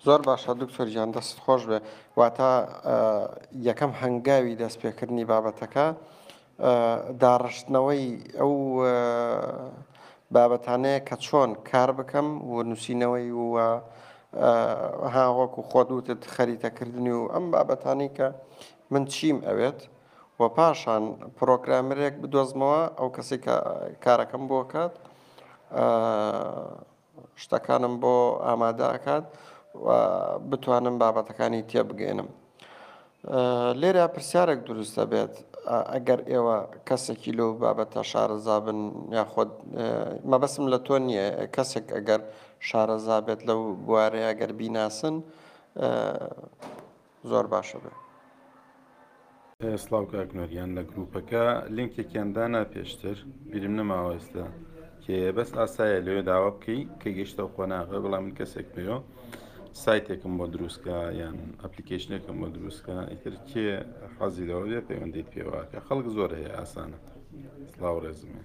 زۆر باشە دکتۆر گیان دەستت خۆش بێ واتە یەکەم هەنگاوی دەستپێکردنی بابەتەکە داڕشتنەوەی ئەو بابەتانەیە کە چۆن کار بکەم و نووسینەوەی و ها وەکو خۆت وتت خەریتەکردنی و ئەم بابەتانی کە من چیم ئەوێت و پاشان پرۆگرامەرێک بدۆزمەوە ئەو کەسی کە کارەکەم بۆ کات شتەکانم بۆ ئامادە ئەکات و بتوانم بابەتەکانی تێبگەێنم. لێرە پرسیارێک دروست دەبێت ئەگەر ئێوە کەسێکی لەو بابەتە شارەزا بن یاخود مەبەسم لە تۆ نییە کەسێک ئەگەر شارەزا بێت لەو بوارەیە ئەگەر بیناسن زۆر باشە بێ. سڵاو کاک نۆریان لە گروپەکە لینکێکیان دانا پێشتر بیرم نەماوە ئێستا کێیە بەس ئاسایە لەوێ داوا بکەی کە گەشتە قۆناغە بەڵام من کەسێک پێوە سایتێکم بۆ دروستکە یان ئەپلیکیشنێکم بۆ دروستکە ئیتر کێ حەزی لەوە بێ پەیوەندیت پێوەکە خەڵک زۆر هەیە ئاسانە سڵاو ڕێزمێ.